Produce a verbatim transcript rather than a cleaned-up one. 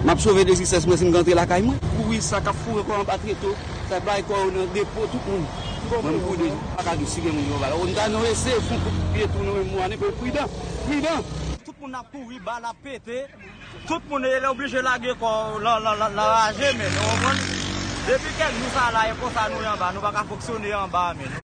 M ap sove de zisès mwen si m ka antre lakay mwen. Kouri sa k ap foure kò anba treto, sa bay kò yo nan depo tout moun. Mwen m kouri de pa ka di si gen moun yo ba. Ou ta nou eseye fon kout pye tou nou menm mwane, men pridan, pridan. Tout moun ap kouri, bal ap pete. Tout moun e oblije lage kò lan lan lan lan raje men nou konprann. Depi kèk jou sa la e konsa nou ye anba, nou pa ka fonksyone anba men.